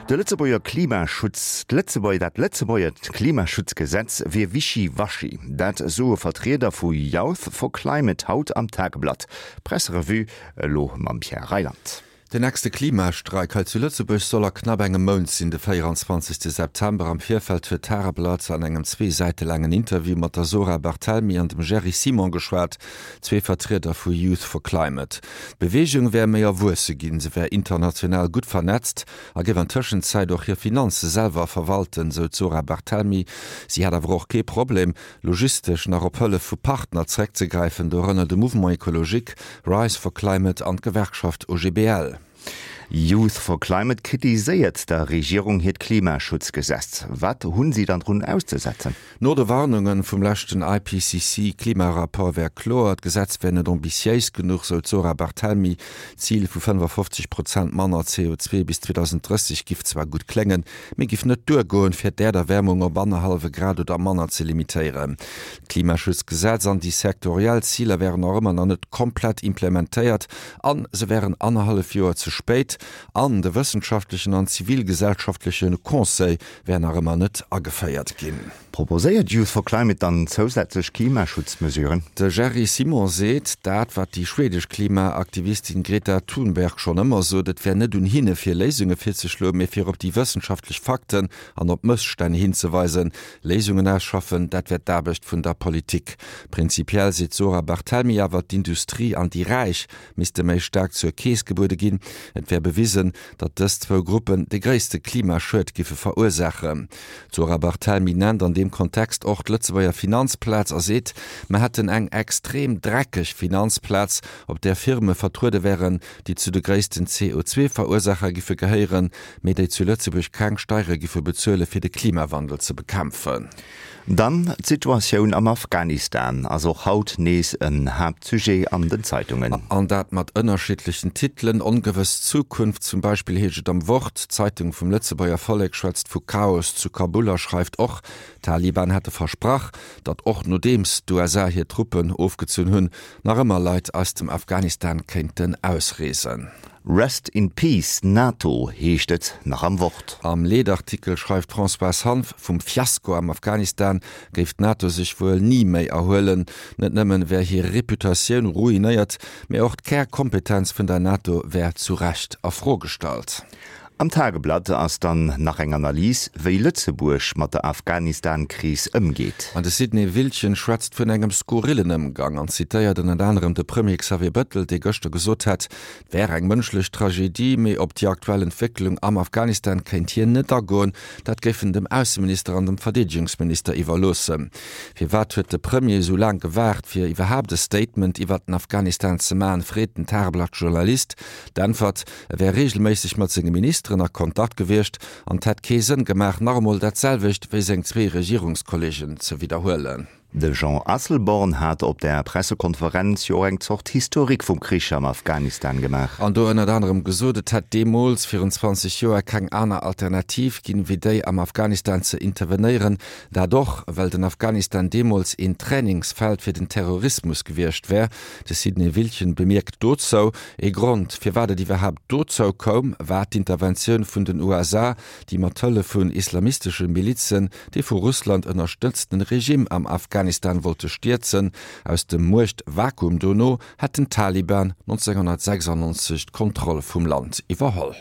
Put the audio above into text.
De Lëtzebuerger Klimaschutz, d'Lëtzebuerger, dat Lëtzebuerger Klimaschutzgesetz wier wischi-waschi. Dat soe Vertrieder vu Youth for Climate haut am Tageblatt. Presserevue elo mam Pierre Reyland. Den nächste Klimastreik hei zu Lëtzebuerg soll a knapp engem Mount sinn, de 24 September. Am Virfeld huet d'Tageblatt an engem zwee Säite laangen Interview mat der Zora Barthelmy an dem Jerry Simon geschwat, zwee Vertrieder vu Youth for Climate. D'Beweegung wär méi erwuesse ginn, se wär international gutt vernetzt a géif an Tëschenzäit och hir Finanze selwer verwalten, sou d'Zora Barthelmy. Si hätt awer och kee Problem, logistesch nach op Hëllef vu Partner zeréckzegräifen, dorënner de Mouvement Ecologique, Rise for Climate an d'Gewerkschaft OGBL. Youth for Climate kritiséiert der Regierung hiert Klimaschutzgesetz. Wat hunn si dann drun auszesetzen? No de Warnunge vum leschten IPCC-Klimarapport wär kloer, d'Gesetz wär net ambitiéis genuch, sou d'Zora Barthelmy. D'Zil vu 55 Prozent manner CO2 bis 2030 giff zwar gutt kléngen, mee giff net duergoen, fir d'Äerderwärmung op annerhallwe Grad oder manner ze limitéieren. D'Klimaschutzgesetz an déi sektoriell Ziler wären och ëmmer nach net komplett implementéiert an se wären annerhallef Joer ze spéit. An de wëssenschaftlechen an zivilgesellschaftleche Conseil wär nach ëmmer net ageféiert ginn. Proposéiert Youth for Climate dann zousätzlech Klimaschutzmesuren? De Jerry Simon seet dat, wat déi schwedesch Klimaaktivistin Greta Thunberg schonn ëmmer sot, et wär net un hinne fir Léisunge virzeschloen, mee fir op déi wëssenschaftlech Fakten an op Mësstänn hinzeweisen. Léisungen ausschaffen, dat wär d'Aarbecht vun der Politik. Prinzipiell seet d'Zora Barthelmy awer, d'Industrie an déi Räich misste méi staark zur Keess gebuede ginn. Et wär bewisen, datt dës zwou Gruppen de gréisste Klimaschued giffe verursaachen. D'Zora Barthelmy nennt an deem Kontext och d'Lëtzebuerger Finanzplaz a seet, mer hätten eng extrem dreckeg Finanzplaz, op där Firme vertruede wären, déi zu de gréissten CO2-Verursaacher giffe gehéieren, mee déi zu Lëtzebuerg keng Steiere giffe bezuele fir de Klimawandel ze bekämpfen. Dann d'Situatioun am Afghanistan ass och haut nees en Haaptsujet an den Zeitungen. An dat mat ënnerschiddlechen Titelen, Ongewëss Zukunft zum Beispill heescht et am Wort. D'Zeitung vum Lëtzebuerger Vollek schwätzt vu Chaos zu Kabul a schreift och, d'Taliban hätte versprach, datt och nodeems d'USA hir Truppen ofgezunn hunn, nach ëmmer Leit aus dem Afghanistan kéinten ausreesen. Rest in peace NATO heescht et nach am Wort. Am Leedartikel schreift d'Françoise Hanff, vum Fiasko am Afghanistan géif d'NATO sech wuel ni méi erhuelen. Net nëmmen wär hir Reputatioun ruinéiert, mee och d'Kärkompetenz vun der NATO wär zu Recht a Fro gestallt. Am Tageblatt ass dann nach eng Analys, wéi Lëtzebuerg mat der Afghanistan-Kris ëmgeet. An de Sidney Wildchen schwätzt vun engem skurrillen Ëmgang an zitéiert ënnert anerem de Premier Xavier Bettel, dee gëschter gesot hätt, Et wär eng mënschlech Tragedie, mee op déi aktuell Entwécklung am Afghanistan kéint hien net agoen. Dat géif en dem Ausseminister an dem Verdeedegungsminister iwwerloossen. Firwat huet de Premier esou laang gewaart, fir iwwerhaapt e Statement iwwert den Afghanistan ze maachen, freet den Tageblatt-Journalist. D'Äntwert, E wär reegelméisseg mat senge Ministeren a Kontakt gewiescht an et hätt kee Sënn gemaach, nach emol dat selwecht wéi seng zwee Regierungskolleegen ze widderhuelen. De Jean Asselborn hat op der Pressekonferenz jo och eng Zort Historique vum Krich am Afghanistan gemaach. An do ënnert anerem gesot, et hätt deemools, virun 20 Joer, keng aner Alternativ ginn, wéi déi am Afghanistan ze intervenéieren. Dat och, well den Afghanistan deemools een Trainingsfeld fir den Terrorismus gewiescht wär. De Sidney Wildchen bemierkt dozou, Ee Grond, firwat et iwwerhaapt dozou koum, war d'Interventioun vun den USA, déi mat Hëllef vun islamistesche Milizen dee vu Russland ënnerstëtzten Regime am Afghanistan wollte stierzen. Aus dem Muechtvakuum dono hätten d'Taliban 1996 d'Kontroll vum Land iwwerholl.